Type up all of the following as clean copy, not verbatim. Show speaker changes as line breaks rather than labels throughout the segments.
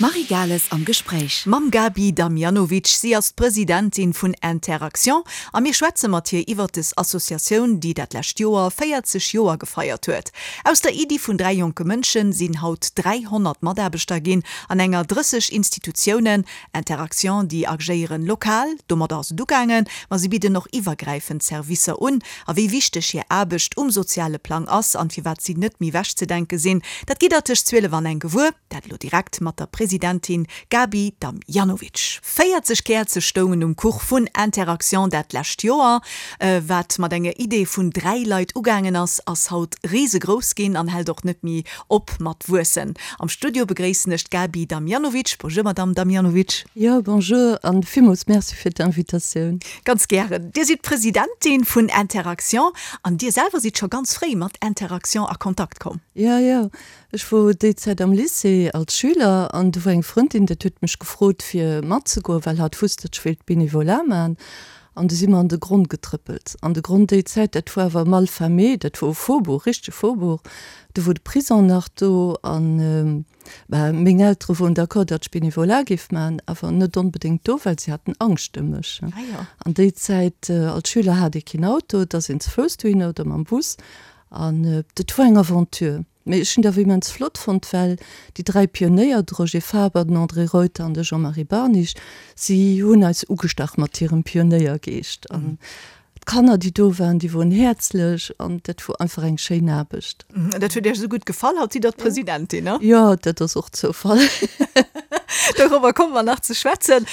D'Marie Gales am Gespréich.
Mam Gaby Damjanovic, si ass d'Presidentin vun Interaction a mir schwätze mat hir iwwert des Associatioun, déi dat lescht Joer 40 Joer gefeiert huet. Aus der Iddi vun 3 jonke Mënschen sinn haut 300 Mataarbechter ginn an enger 30 Institutiounen. Interaction, déi agéieren lokal, domadder ass et ugaangen, ma si bidden och iwwergräifend Servicer un. A wéi wichteg hir Aarbecht um soziale Plang ass an firwat si net méi wechzedenke sinn, dat gitt der tëscht 12 an eng gewuer. Dat elo direkt mat der Presidentin Gaby Damjanovic. 40 Käerze stoungen um Kuch vun Interaction dat lescht Joer. Wat mat enger Idee vun 3 Leit ugaangen ass, ass haut risegrouss ginn an hält och net méi op mat wuessen. Am Studio begréissen ech d'Gaby Damjanovic. Bonjour Madame Damjanovic.
Jo, bonjour an villmools Merci fir d'Invitatioun.
Ganz gären. Dir sidd d'Presidentin vun Interaction an Dir selwer sidd scho ganz fréi mat Interaction a Kontakt komm.
Jo, jo. Ech wor déi Zäit am Lycée als Schüler an do wor eng Frëndin, dat huet mech gefrot fir matzegoen, well hatt wusst, datt ech wéilt Bénévolat man. An du si mer an de Gronn getrëppelt. An de Gronn déi Zäit, dat wor awer mal famé, dat wor e Faubourg, richtege Faubourg. Do wor de Prison nach do an bah, meng Eltere woren d'accord, datt ech Bénévolat géif man, awer net onbedéngt do, well si haten Angscht ëm mech. An déi Zäit als Schüler hat ee keen Auto, et ass een ze Fouss dohinner oder mam Bus an dat wor eng Aventure. Mee ech hunn dat awer immens flott fonnt, well déi 3 Pionéier, de Roger Faber, den André Reuter an de Jean-Marie Barnich, si hunn eis ugestach mat hirem Pionéiergeescht. An d'Kanner, déi do waren, déi woren häerzlech an dat wor einfach eng schéin Aarbecht.
Dat huet Iech esou gutt gefall, haut sidd Der d'Presidentin, ne?
Jo, dat ass och Zoufall.
Dorobber komme mer nach ze schwätzen.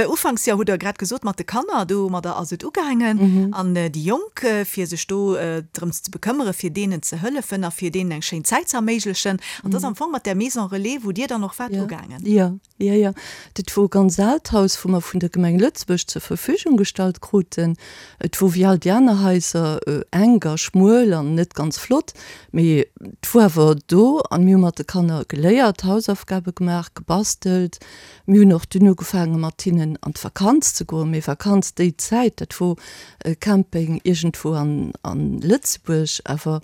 Ufanks, jo, hutt Der grad gesot, mat de Kanner, domadder ass et ugaangen. An déi Jonk, fir sech do drëms ze bekëmmere, fir deenen ze hëllefen a fir deenen eng schéin Zäit ze erméiglechen. An dat ass am Fong mat där Maison Relais, wou Dir dann och waart, ugaangen.
Jo, jo, jo. Dat wor e ganz aalt Haus, wou mer vun der Gemeng Lëtzebuerg zur Verfügung gestallt kruten. Et wor wéi all déi aner Haiser enk a schmuel an net ganz flott, mee et wor awer do an mir hu mat de Kanner geléiert, Hausaufgabe gemaach, gebastelt. Mir hunn och dunn ugefaange mat hinnen an d'Vakanz ze goen. Mee Vakanz déi Zäit, dat wor e Camping iergendwou an Lëtzebuerg, awer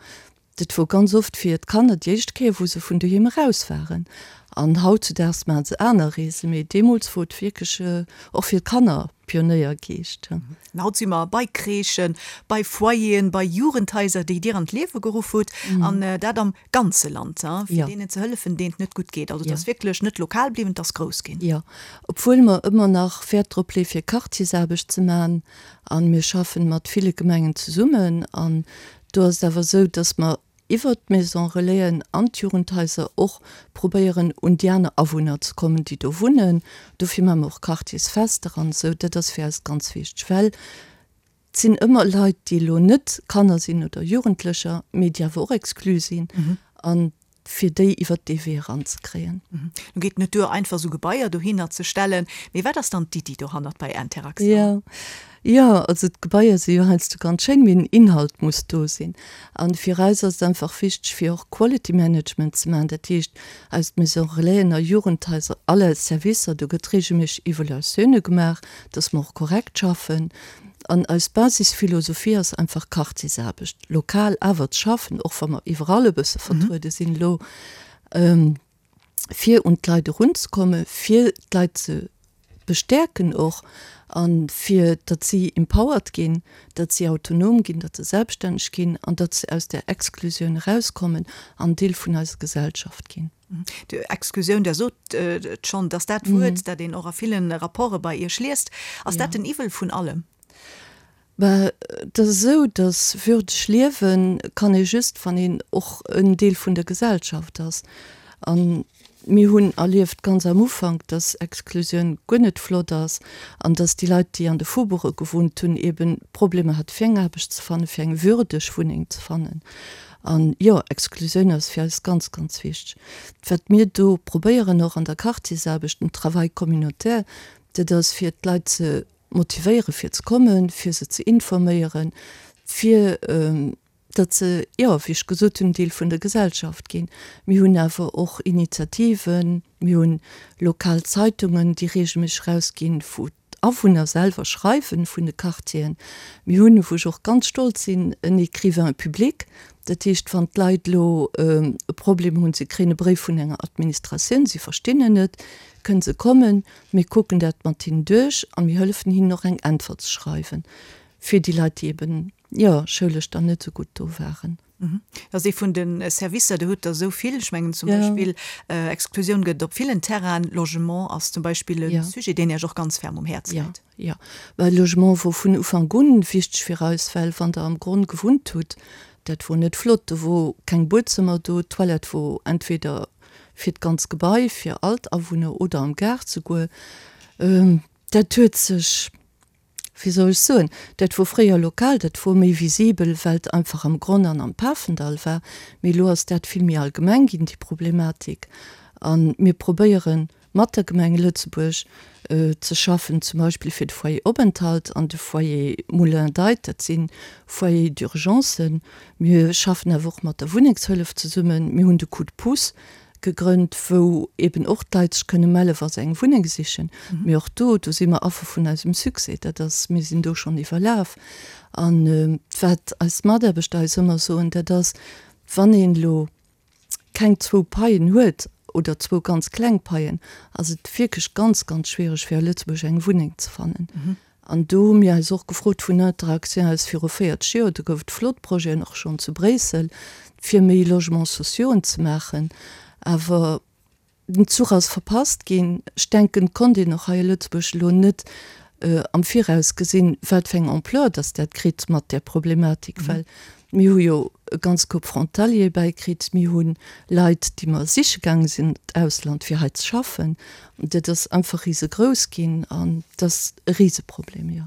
dat wor ganz oft fir d'Kanner déi éischt Kéier, wou se vun doheem eraus waren. An hautzudaags maache se aner Reesen, mee deemools wor et wierklech och fir d'Kanner Pionéiergeescht.
An haut si mer bei Crèchen, bei Foyeren, bei Jugendhaiser, déi Dir an d'Liewe geruff hutt, an dat am ganze Land, fir deenen ze hëllefen, deenen et net gutt geet. Also et ass wierklech net lokal bliwwen, et ass grouss ginn.
Jo, obwuel mer ëmmer nach Wäert drop leeë fir Quartiersaarbecht ze maachen, a mir schaffen mat ville Gemengen zesummen, an do ass et awer esou, datt mer iwwert d'Maison Relaisen an d'Jugendhaiser och probéieren un déi aner Awunner ze kommen, déi do wunnen. Dofir maache mer och Quartiersfester an esou. Dat ass fir eis ganz wichteg, well et sinn ëmmer Leit, déi elo net Kanner sinn oder Jugendlecher, mee déi awer och exclu sinn an fir déi iwwert dee Wee eranzekréien.
Nu geet et net duer, einfach esou Gebaier dohinner ze stellen, mee wat ass dann d'Iddi dohannert bei Interaction?
Jo, jo, also d'Gebaier si jo heiansdo ganz schéin, mee den Inhalt muss do sinn. A fir eis ass et einfach wichteg, fir och Quality Management ze maachen, dat heescht aus Maison Relaisen a Jugendhaiser, all eis Servicer, do gëtt reegelméisseg Evaluatioune gemaach, dass mer och korrekt schaffen. An eis Basisphilosophie ass einfach Quartiersaarbecht, lokal awer ze schaffen, och wa mer iwwerall e bësse vertruede sinn elo, fir un d'Leit erunzekommen, fir d'Leit ze bestäerken och a fir datt si empowered ginn, datt si autonom ginn, datt se selbststänneg ginn an datt se aus där Exklusioun erauskommen an Deel vun eiser Gesellschaft ginn.
Exklusioun, Der sot et schonn, dass dat Wuert, dat een och a ville Rapporte bei Iech liest. Ass dat den Iwwel vun allem?
Bah, et ass esou, datt würdeg liewe kann ee just, wann een och en Deel vun der Gesellschaft ass. A mir hunn erlieft ganz am Ufank, datt Exklusioun guer net flott ass an datt déi Leit, déi an de Faubourge gewunnt hunn, eeben Problemer hate fir eng Aarbecht ze fannen, fir eng würdeg Wunneng ze fannen. An jo, Exklusioun ass fir eis ganz, ganz wichteg. Wat mir do probéieren, och an der Quartiersaarbecht, dem Travail communautaire, dat ass fir d'Leit ze motivéieren, fir ze kommen, fir se ze informéieren, fir datt se, jo, wéi ech gesot hunn, Deel vun der Gesellschaft ginn. Mir hunn awer och Initiativen, mir hunn lokal Zeitungen, déi reegelméisseg erausginn, wou. d'Awunner selwer schreiwen vun de Quartieren. Mir hunn, wou ech och ganz stolz sinn, en Écrivain public. Dat heescht, wann d'Leit elo e Problem hunn, se kréien e Bréif vun enger Administratioun, se verstinn en net, kënne se kommen, mir kucken dat mat hinnen duerch a mir hëllefen hinnen och eng Äntwert ze schreiwen, fir déi Leit, déi eben, jo, schoulesch dann net esou gutt do waren.
Dat ass ee vun de Servicer, do hutt Der esou vill. Ech mengen zum Beispill Exklusioun gëtt et op villen Terrainen. Logement ass zum Beispill e Sujet, deen Iech och ganz ferm um Häerz läit.
Jo, well Logement wor vun Ufank un wichteg fir eis, well wann Der am Gronn gewunnt hutt, dat wor net flott, do wor keng Buedzëmmer do, d'Toilette wor entweder fir d'ganz Gebai, fir all d'Awunner oder am Gaart souguer. Dat huet sech wéi soll ech soen, dat wor fréier lokal, dat wor méi visibel, well et einfach am Gronn an am Pafendall war, mee elo ass dat vill méi allgemeng ginn, déi Problematik. A mir probéiere mat der Gemeng Lëtzebuerg ze schaffen, zum Beispill fir de Foyer Openthalt an de Foyer Moulin d'Aid, dat si Foyers d'urgencen. Mir schaffen awer och mat der Wunnengshëllef zesummen. Mir hunn de Coup de pouce gegrënnt, wou eben och d'Leit sech kënne mellen, wa se eng Wunneng sichen. Mee och do, do si mer Affer vun eisem Succès. Dat ass, mir sinn do schonn iwwerlaf. A wat eis Mataarbechter eis ëmmer soen, dat ass, wann een elo keng zwou Paien huet oder zwou ganz kleng Paien, ass et wierklech ganz, ganz schwiereg, fir a Lëtzebuerg eng Wunneng ze fannen. An do hu mir eis och gefrot vun Interaction aus viru 40 Joer, do gouf et flott Projeten och schonn zu Bréissel, fir méi Logements sociauxen ze maachen. Awer den Zuch ass verpasst ginn. Ech denken, et konnt een och hei a Lëtzebuerg elo net am Viraus gesinn, wat fir eng Ampleur dass dat kritt mat där Problematik, well mir hu jo e ganz Koup Frontaliere bäikritt, mir hu Leit, déi mer siche gaange sinn an d'Ausland, fir hei ze schaffen. Dat ass einfach risegrouss ginn an dat ass e Riseproblem, jo.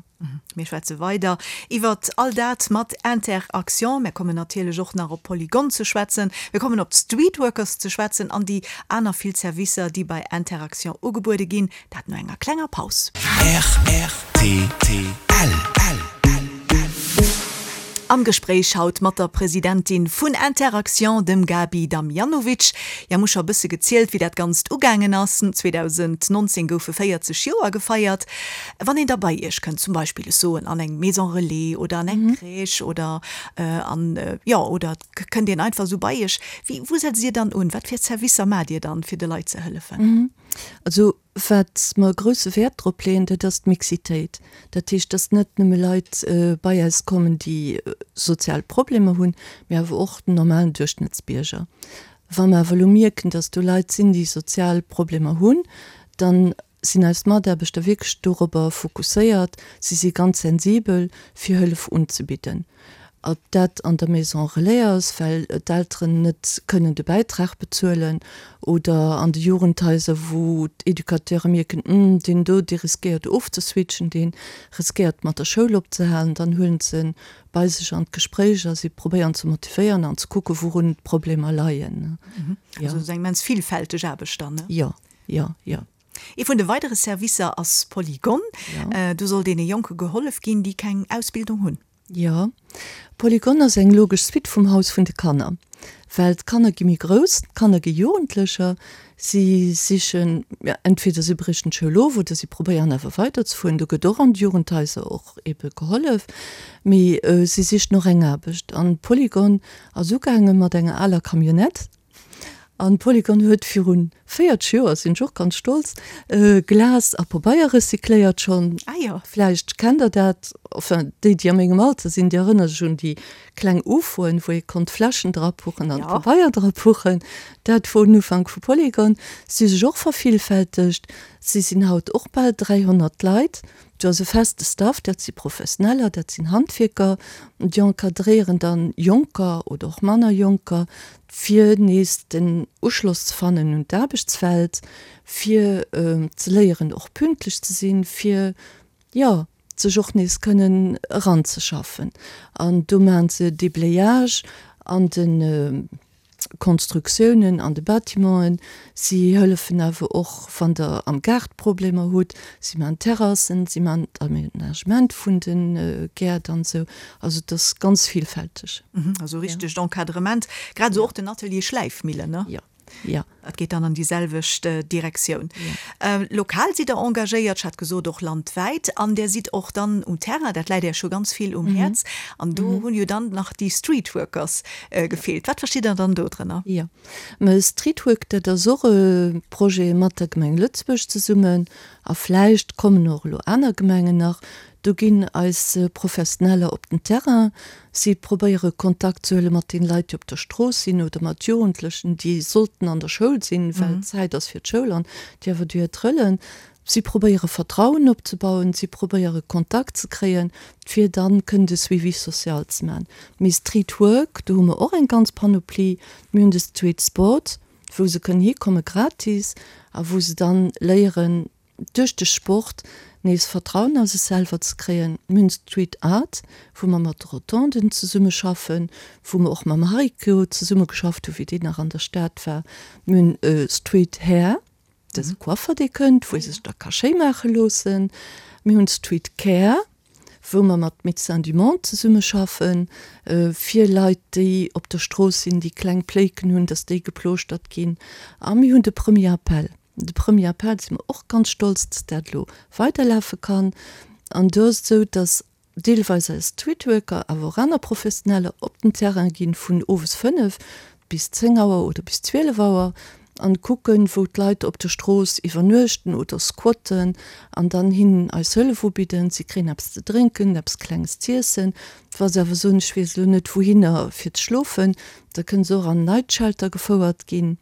Mir schwätze weider iwwert all dat mat Inter-Action. Mir kommen natierlech och nach op Polygone ze schwätzen. Mir kommen op d'Streetworkers ze schwätzen an déi aner vill Servicer, déi bei Inter-Action ugebuede ginn. Dat no enger klenger Paus.
Rtl.
Am Gespréich haut mat der Presidentin vun Inter-Actions, dem Gaby Damjanovic. Jo, mir hu scho e bësse gezielt, wéi dat Ganzt ugaangen ass. 2019 goufe 40 Joer gefeiert. Wann een da bei Iech kënnt, zum Beispill, ech soen, an eng Maison Relais oder an eng Crèche oder an, jo, oder et kënnt een einfach esou bei Iech, wéi, wou setzt Dir dann un? Wat fir Servicer maacht Dir dann, fir de Leit ze hëllefen?
Also wat mer grousse Wäert drop leeën, dat ass d'Mixitéit. Dat heescht, dass net nëmme Leit bei eis kommen, déi sozial Problemer hunn, mee awer och den normalen Duerchschnëttsbierger. Wa mer awer elo mierken, dass do Leit sinn, déi sozial Problemer hunn, dann sinn eis Mataarbechter wierklech dorobber fokusséiert, si si ganz sensibel, fir Hëllef unzebidden. Ob dat an der Maison Relais ass, well d'Elteren net kënnen de Bäitrag bezuelen, oder an de Jugendhaiser, wou d'Educateure mierken, Hm, deen do, dee riskéiert ofzeswitchen, dee riskéiert mat der Schoul opzehalen, dann huelen se en bei sech an d'Gespréich a si probéieren ze motivéieren an ze kucken, wourun d'Problemer leien.
Also et ass eng immens villfälteg Aarbecht dann, ne?
Jo, jo, jo.
Ee vun de weidere Servicer ass Polygon. Do soll deene Jonke gehollef ginn, déi keng Ausbildung hunn.
Jo, Polygon ass eng logesch Suite vum Haus vun de Kanner, well d'Kanner gi méi grouss, d'Kanner gi Jugendlecher, si sichen, entweder si briechen d'Schoul of oder si probéieren awer weiderzefueren, do gëtt och an de Jugendhaiser och ebe gehollef, mee si sichen och eng Aarbecht. An Polygon ass ugaange mat enger aler Camionnette, An Polygon huet virun 40 Joer, sinn ech och ganz stolz, Glas a Pabeier recycléiert schonn.
Ah jo.
Vläicht kennt der dat, enfin déi déi a mengem Alter sinn, déi erënnere sech un déi kleng Ufoen, wou ee konnt Fläschen drapuchen an Pabeier drapuchen. Dat wor den Ufank vu Polygon. Si hu sech och vervillfältegt, si sinn haut och bal 300 Leit. Do ass e feste Staff, dat si Professioneller, dat sinn Handwierker, déi encadréieren dann Jonker oder och manner Jonker, fir nees den Uschloss ze fannen un d'Aarbechtswelt, fir ze léieren och pünktlech ze sinn, fir, jo, sech och nees kënnen eranzeschaffen. An do maachen se Déblayage an de Konstruktiounen an de Bâtimenten. Si hëllefen awer och, wann Der am Gaart Problemer hutt. Si maachen Terrassen, si maachen d'Aménagement vun de Gäert an esou. Also et ass ganz villfälteg.
Also richtegt Encadrement. Grad esou och den Atelier Schläifmillen, ne?
Jo. Jo.
Dat geet dann an déi selwecht Direktioun. Lokal sidd Der engagéiert, ech hat gesot och landwäit, an Der sidd och dann um Terrain, dat läit Iech jo ganz vill um Häerz. An do hunn jo dann nach déi Streetworkers gefeelt. Wat verstitt Der dann do drënner?
Jo, mä Streetwork, dat ass och e Projet mat der Gemeng Lëtzebuerg zesummen a vläicht kommen och elo aner Gemengen nach. Do ginn eis Professioneller op den Terrain. Si probéiere Kontakt ze huele mat den Leit, déi op der Strooss sinn oder mat Jugendlechen, déi sollten an der Schoul sinn, well Zäit ass fir d'Schoul an déi awer duer trëllen. Si probéiere Vertrauen opzebauen, si probéiere Kontakt ze kréien, fir dann kënnen de Suivi social ze maachen. Mee Street Work, do hu mer och eng ganz Panoplie. Mir hunn de Street Sport, wou se kënnen hikomme gratis a wou se dann léieren, duerch de Sport nees Vertrauen a sech selwer ze kréien. Mir hunn Street Art, wou mer mat de Rotonden zesummeschaffen, wou mer och mam Hariko zesummegeschafft hu wéi deen nach an der Stad war. Mir hunn Street Hair, dat ass e Coiffer dee kënnt, wou ee sech da ka schéi maache loossen. Mir hunn Street Care, wou mer mat Médecins du Monde zesummeschaffen, fir Leit déi op der Strooss sinn, déi kleng Pléiken hunn, datt déi geplooschtert ginn. A mir hunn de Premier Appel. De Premier Appel si mer och ganz stolz, dass dat elo weiderlafe kann. An do ass et esou, dass deelweis eis Streetworker, awer och aner Professioneller op den Terrain ginn vun owes 5 bis 10 Auer oder bis 12 Auer an kucken, wou d'Leit op der Strooss iwwernuechten oder squatten an dann hinnen eis Hëllef ubidden. Si kréien eppes ze drénken, eppes Klenges z'iessen. Wa se awer soen, ech weess elo net wouhinner fir ze schlofen, da kënne se och an Night Shelter gefouert ginn.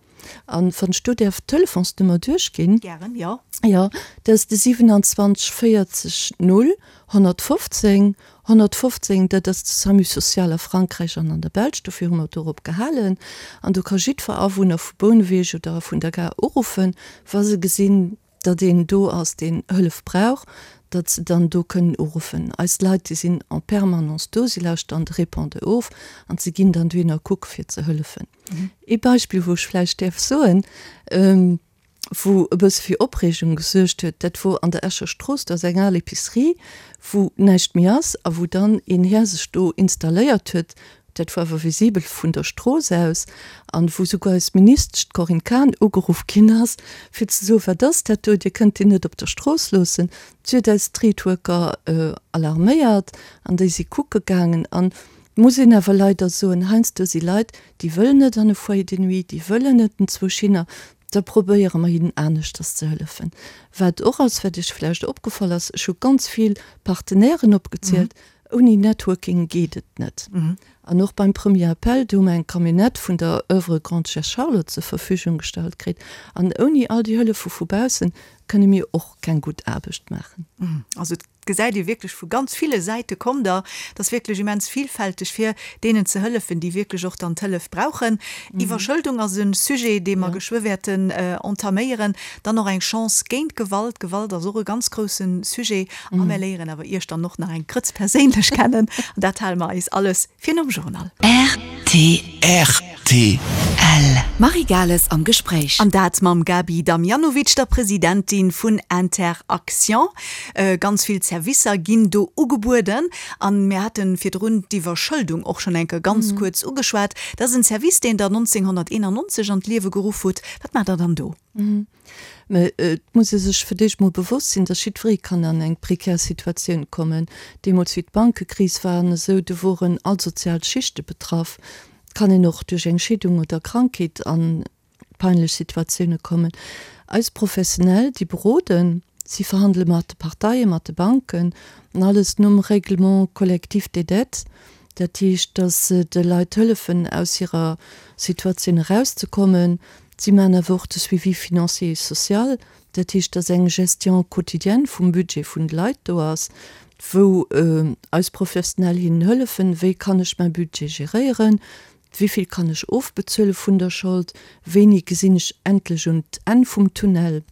An wann ech do däerf d'Telefonsnummer duerchginn.
Gären, jo.
Jo, dat ass de 27 40 0 115 115. Dat ass de Samu social a Frankräich an an der Belsch. Dofir hu mer dorop gehalen. An do ka jiddwer Awunner vu Bouneweg oder vun der Gare uruffen, wa se gesinn, datt een do ass, deen Hëllef brauch, datt se dann do kënnen uruffen. Eis Leit, déi sinn en permanence do, si lauschteren de Répondeur of an se ginn dann dohinner kucke fir ze hëllefen. Ee Beispill, wou ech vläicht däerf soen, wou e bësse fir Opreegung gesuergt huet, dat wor an der Escher Strooss, do ass eng al Epicerie, wou näischt méi ass a wou dann een Här sech do installéiert huet, dat wor awer visibel vun der Strooss aus, an wou souguer eis Ministesch, d'Corinne Cahen, ugeruff ginn ass, fir ze soen, Wat ass dat do, Dir kënnt deen net op der Strooss loossen. Si huet eis Streetworker alarméiert an déi si kucke gaangen. An Et muss een awer leider soen, heiansdo si Leit, déi wëllen net an e Foyer de nuit, déi wëllen net enzwousch hinner, da probéiere mer hinnen aneschters ze hëllefen. Wat och ass, wat Iech vläicht opgefall ass, ech hu ganz vill Partenairen opgezielt, ouni Networking geet et net. An och beim Premier Appel, do hu mer eng Camionnette vun der Oeuvre Grande-Duchesse Charlotte zur Verfügung gestallt kritt. An ouni all déi Hëllefe vu baussen kënne mir och keng gutt Aarbecht maachen.
Also et gesäit ee wierklech vu ganz ville Säite kommt Der. Et ass wierklech immens vielfälteg, fir deenen ze hëllefen, déi wierklech och dann d'Hëllef brauchen. Iwwerschëldung ass e Sujet, dee mer geschwë wäerten entaméieren. Dann och eng Chance géint Gewalt. Gewalt ass och e ganz grousse Sujet. A mer léieren awer Iech dann och nach eng Grëtz perséinlech kennen. An dat hale mer eis alles fir nom Journal.
Rtl. T. L. Marie Gales am Gespréich.
An dat mam Gaby Damjanovic, der Presidentin vun Inter-Actions. Ganz vill Servicer ginn do ugebueden. An mir hate virdrun d'Iwwerschëldung och schonn eng Kéier ganz kuerz ugeschwat. Dat ass en Service, deen Der 1991 an d'Liewe geruff hutt. Wat maacht Der dann do?
Mä et muss ee sech fir d'éischt mol bewosst sinn, datt jiddweree kann an eng prekär Situatioun kommen. Deemools wéi d'Bankekris war an esou, do woren all sozial Schichte betraff. Et kann een och duerch eng Scheedung oder Krankheet a peinlech Situatioune kommen. Eis Professionell, déi beroden, si verhandele mat de Parteien, mat de Banken an alles nom Règlement collectif des dettes. Dat heescht, datt se de Leit hëllefen, aus hirer Situatioun erauszekommen. Si maachen awer och de Suivi financier et social, dat heescht, datt eng Gestion quotidienne vum Budget vun de Leit do ass, wou eis Professionell hinnen hëllefen, wéi kann ech mäi Budget geréieren, wéi vill kann ech ofbezuele vun der Schold, wéini gesinn ech endlech un d'Enn vum Tunnel.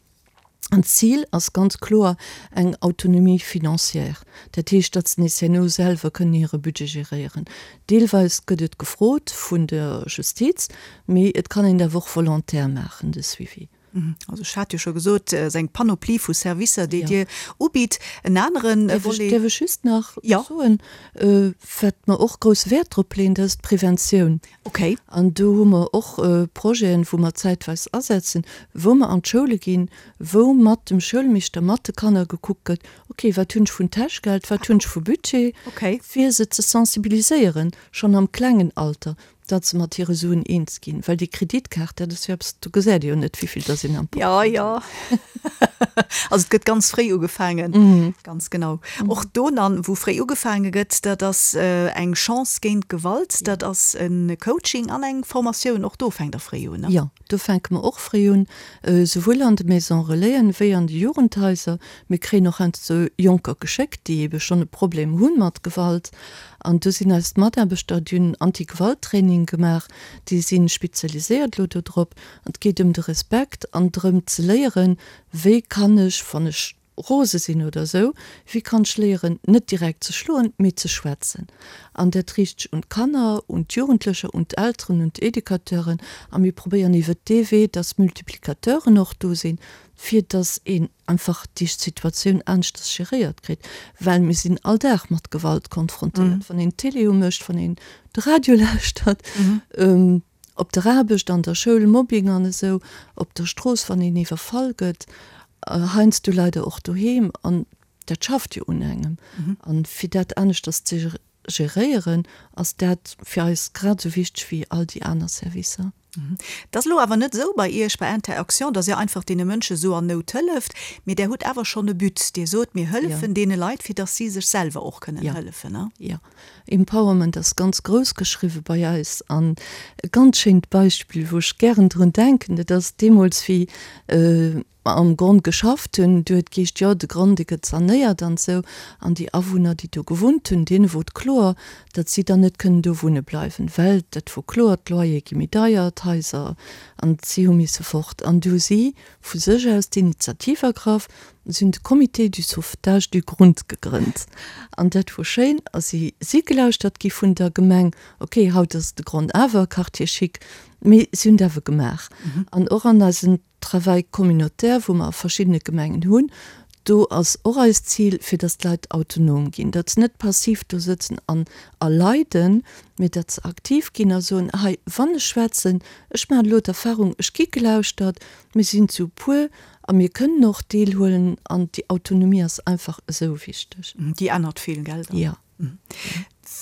An d'Zil ass ganz kloer eng Autonomie financière, dat heescht, datt se nees herno selwer kënnen hire Budget geréieren. Deelweis gëtt et gefrot vun der Justiz, mee et kann een et awer och volontaire maachen, de Suivi.
Also ech hat jo scho gesot, et ass eng Panoplie vu Servicer, déi Dir ubitt. En anere
Volet. Däerf ech just nach soen, wat mer och grousse Wäert drop leeën, dat ass d'Preventioun.
Okay.
An do hu mer och Projeten, wou mer zäitweis asetzen, wou mer an d'Schoule ginn, wou mat dem Schoulmeeschter, mat de Kanner gekuckt gëtt, okay, wat hunn ech vun Täschgeld, wat hunn ech vu Budget, fir se ze sensibiliséieren, schonn am klengen Alter, datt se mat hire Suen eens ginn. Well déi Kreditkaart, dat ass jo eppes, do gesäit ee jo net, wéi vill datt een am
Portmonni huet. Jo, jo. Also et gëtt ganz fréi ugefaangen. Ganz genau. Och do dann, wou fréi ugefaange gëtt, dat ass eng Chance géint Gewalt, dat ass e Coaching an eng Formatioun. Och do fänkt Der fréi un, ne?
Jo, do fänke mer och fréi un, souwuel an de Maisons Relaisen wéi an de Jugendhaiser. Mir kréien och heiansdo Jonker geschéckt, déi ebe schonn e Problem hu mat Gewalt. An do sinn eis Mataarbechter, déi hunn Anti-Gewalt-Training gemaach, déi si spezialiséiert elo do drop. An et geet ëm de Respekt an drëm ze léieren, wéi kann ech, wann ech rose sinn oder esou, wéi kann ech léieren, net direkt ze schloen, mee ze schwätzen. An dat riicht sech un d'Kanner, un d'Jugendlecher, un d'Elteren, un d'Educateuren. A mir probéieren iwwert dee Wee, dass Multiplicateuren och do sinn, fir dass een einfach déi Situatioun aneschters geréiert kritt, well mir sinn all Dag mat Gewalt konfrontéiert, wann een d'Télé umécht, wann een de Radio lauschtert, op der Aarbecht, an der Schoul, Mobbing an esou, op der Strooss, wann een iwwerfall gëtt, heiansdo leider och doheem, an dat schafft jo un engem. An fir dat aneschters ze geréieren, ass dat fir eis grad esou wichteg wéi all déi aner Servicer.
Et ass elo awer net esou bei Iech bei Inter-Actions, datt Dir einfach deene Mënsche esou an Nout hëlleft, mee Der hutt awer schonn e But. Dir sot, mir hëllefen deene Leit, fir datt si sech selwer och kënnen hëllefen.
Jo, Empowerment ass ganz grouss geschriwwe bei eis. An e ganz schéint Beispill, wou ech gären drun denken, dat ass deemools, wéi mer am Gronn geschafft hunn, du huet geescht, jo, de Gronn, dee gëtt sanéiert an esou. An déi Awunner, déi do gewunnt hunn, deene wor et kloer, datt si dann net kënnen do wunne bleiwen, well dat wor kloer, d'Loyere gi méi deier, d'Haiser, an si hu misse fort. An du hu si vu sech aus d'Initiativ ergraff, si hunn de Comité du sauvetage du Grund gegrënnt. An dat wor schéin a si si gelauschtert gi vun der Gemeng. Ok, haut ass de Gronn awer Quartier chic, mee si hunn et awer gemaach. An och an eisen Travail communautaire, wou mer a verschiddene Gemengen hunn, do ass och eist Zil, fir datt d'Leit autonom ginn, datt se net passiv do sëtzen an erleiden, mee datt se aktiv ginn a soen, hei, wann ech schwätzen, ech maachen elo d'Erfahrung, ech gi gelauschtert, mir sinn zu puer a mir kënnen och deelhuelen an déi Autonomie ass einfach esou wichteg.
Déi ännert vill, gell?
Jo.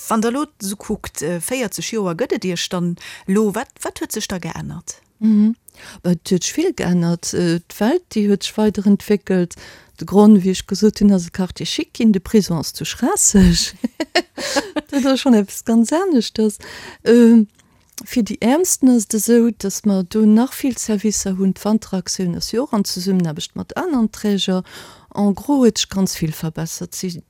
Wann Der elo esou kuckt, 40 Joer gëtt et Iech dann elo, wat, wat huet sech da geännert?
Et huet sech vill geännert. D'Welt, déi huet sech weiderentwéckelt. De Gronn, wéi ech gesot hunn, ass e Quartier chic ginn. De Prison ass zu Schraasseg. Dat ass schonn eppes ganz aneschters. Fir déi Äermsten ass et esou, datt mer do nach vill Servicer hunn. D'Wanteraktioun ass jo och an Zesummenaarbecht mat aneren Träger. En gros huet sech ganz vill verbessert. Si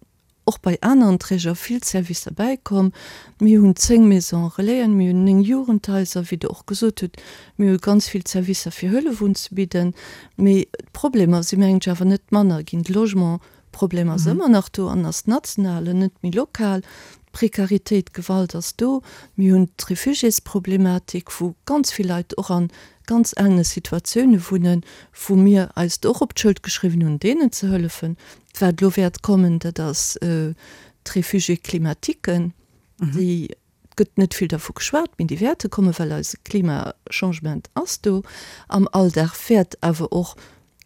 och bei aneren Träger vill Servicer bäikomm. Mir hunn 10 Maisons Relaisen, mir hunn 9 Jugendhaiser, wéi Der och gesot hutt. Mir hu ganz vill Servicer fir Hëllef unzebidden. Mee d'Problemer si mengen ech awer net manner ginn. De Logementproblem ass ëmmer nach do an ass national an net méi lokal. D'Prekaritéit, d'Gewalt ass do. Mir hunn d'Refugiésproblematik, wou ganz vill Leit och a ganz ellene Situatioune wunnen, wou mir eis et och op d'Schëld geschriwwen hunn, deenen ze hëllefen. Wat elo wäert kommen, dat ass d'Réfugiés climatiques. Déi gëtt net vill dervu geschwat, mee déi wäerte kommen, well eise Klimachangement ass do. Am Alldag wäert awer och,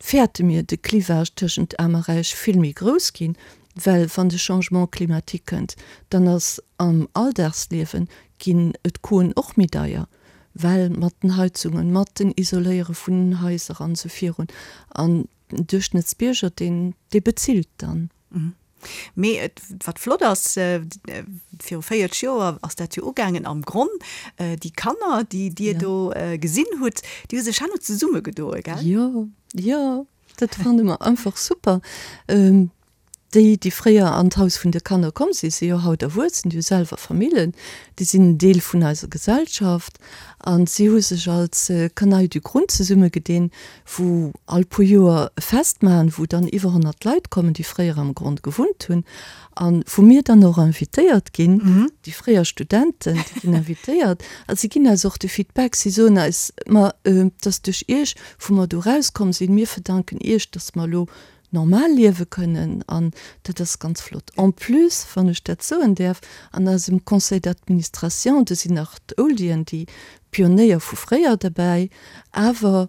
fäerte mir, de Clivage tëschent Aarm a Räich vill méi grouss ginn, well wann de Changement climatique kënnt, dann ass am Alldagsliewe ginn d'Coûten och méi deier, well mat den Heizungen, mat den Isoléiere vun den Haiser an esou virun. An Den Duerchschnëttsbierger, deen, dee bezilt dann.
Mee et, wat flott ass, viru 40 Joer ass dat jo ugaangen am Gronn, déi Kanner, déi Dir do gesinn hutt, déi hu sech herno zesummegedoe, gell?
Jo, jo, dat fanne mer einfach super. Déi, déi fréier an d'Haus vun de Kanner komm sinn, si jo haut erwuessen, déi hu selwer Famillen, déi sinn en Deel vun eiser Gesellschaft a si hu sech als Canaille du Grund zesummegedinn, wou all puer Joer e Fest maachen, wou dann iwwer 100 Leit kommen, déi fréier am Grond gewunnt hunn a wou mir dann och invitéiert ginn, déi fréier Studenten, déi ginn invitéiert a si ginn eis och de Feedback, si soen eis, ma et ass duerch iech, wou mer do erauskomm sinn, mir verdanken iech, datt mer elo normal liewe kënnen an dat ass ganz flott. En plus, wann ech dat soen däerf, an eisem Conseil d'administration, do sinn nach d'Oldien, déi Pionéier vu fréier derbäi, awer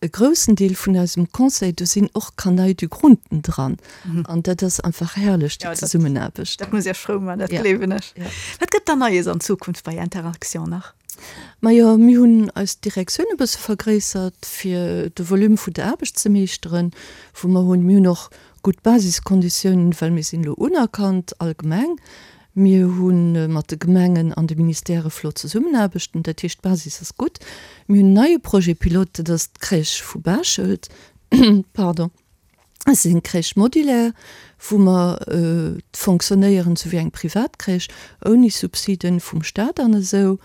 e groussen Deel vun eisem Conseil, do sinn och Canaille du Grunden dran an dat ass einfach herrlech, déi Zesummenaarbecht.
Dat muss Iech frou maachen, dat gleewen ech. Wat gëtt dann Neies an Zukunft bei Interaction nach?
Majo, mir hunn eis Direktioun e bësse vergréissert, fir de Volume vun der Aarbecht ze meeschteren, wou mer hunn. Mir hunn och gutt Basiskonditiounen, well mir sinn elo unerkannt allgemeng. Mir hu mat de Gemengen an de Ministèrë flott Zesummenaarbechten, dat heescht d'Basis ass gutt. Mir hunn en neie Projet pilote, dat ass d'Crèche vu Baschelt, pardon. Et ass eng Crèche modulaire, wou mer fonctionnéieren esou wéi eng privat Crèche, ouni Subsiden vum Staat an esou,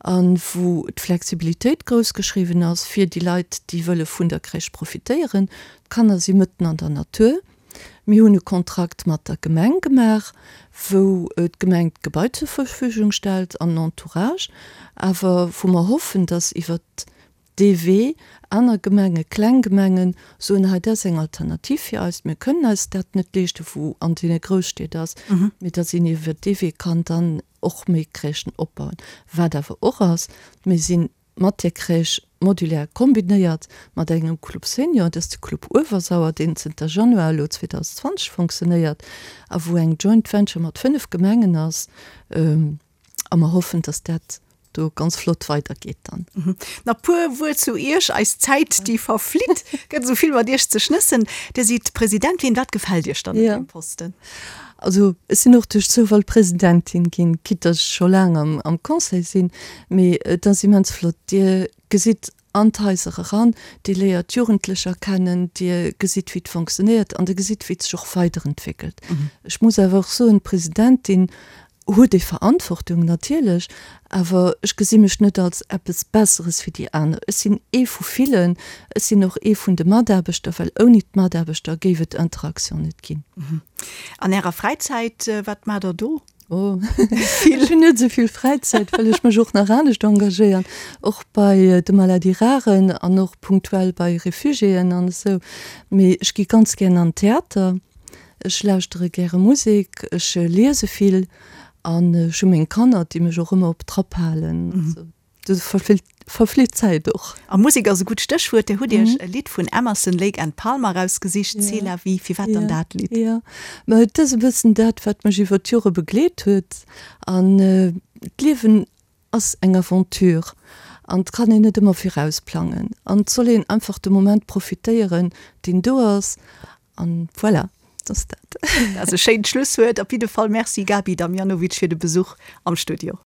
a wou d'Flexibilitéit grouss geschriwwen ass fir déi Leit, déi wëlle vun der Crèche profitéieren. D'Kanner si mëtten an der Natur. Mir hunn e Kontrakt mat der Gemeng gemaach, wou d'Gemeng d'Gebai zur Verfügung stellt an den Entourage, awer wou mer hoffen, dass iwwert dee Wee, aner Gemenge, kleng Gemengen, soen, hei dat ass eng Alternativ fir eis, mir kënnen eis dat net leeschten, wou an deene Grousstied ass, mee datt een iwwer dee Wee kann dann och méi Crèchen opbauen. Wat awer och ass, mir si mat där Crèche modulaire kombinéiert mat engem Club Senior, dat ass de Club Uewersauer, deen zënter Januar elo 2020 fonctionnéiert a wou eng Joint Venture mat 5 Gemengen ass. A mer hoffen, dass dat do ganz flott weidergeet dann.
Nach puer Wuert zu Iech, eis Zäit déi verflitt, gëtt esou vill mat Iech ze schnëssen. Dir sidd Presidentin, wat gefält Iech dann un deem Posten?
Also ech sinn och duerch Zoufall Presidentin ginn, quitte dass ech scho laang am Conseil sinn, mee et ass immens flott. Dir gesitt an d'Haiser eran, Dir léiert d'Jugendlecher kennen, Dir gesitt wéi et fonctionnéiert an Dir gesitt wéi et sech och weiderentwéckelt. Ech muss awer och soen, d'Presidentin huet ee Verantwortung natierlech, awer ech gesi mech net als eppes Besseres wéi déi aner. Ech sinn ee vu villen, ech sinn och ee vun de Mataarbechter, well ouni d'Mataarbechter géif et Interaction net ginn.
An Ärer Fräizäit, wat maacht Der do?
Oh, ech hunn net esou vill Fräizäit, well ech mech och nach anescht engagéieren, och bei de Maladies rares an och punktuell bei Refugiéen an esou. Mee ech gi ganz gären an den Theater. Ech lauschtere gäre Musek, ech liese vill an ech hu meng Kanner, déi mech och ëmmer op Trapp halen. Also do verflitt d'Zäit och.
A Musek ass e gutt Stéchwuert. Dir hutt Iech e Lidd vun Emerson, Lake and Palmer erausgesicht, C'est la vie. Firwat dann dat Lidd?
Jo, ma et ass e bëssen dat, wat mech iwwer d'Jore begleet huet. An d'Liewen ass eng Aventure an et kann een net ëmmer virausplangen an et soll een einfach de Moment profitéieren, deen do ass an voilà, dat ass dat.
Dat ass e schéint Schlusswuert. Op jidde Fall Merci Gaby Damjanovic fir de Besuch am Studio.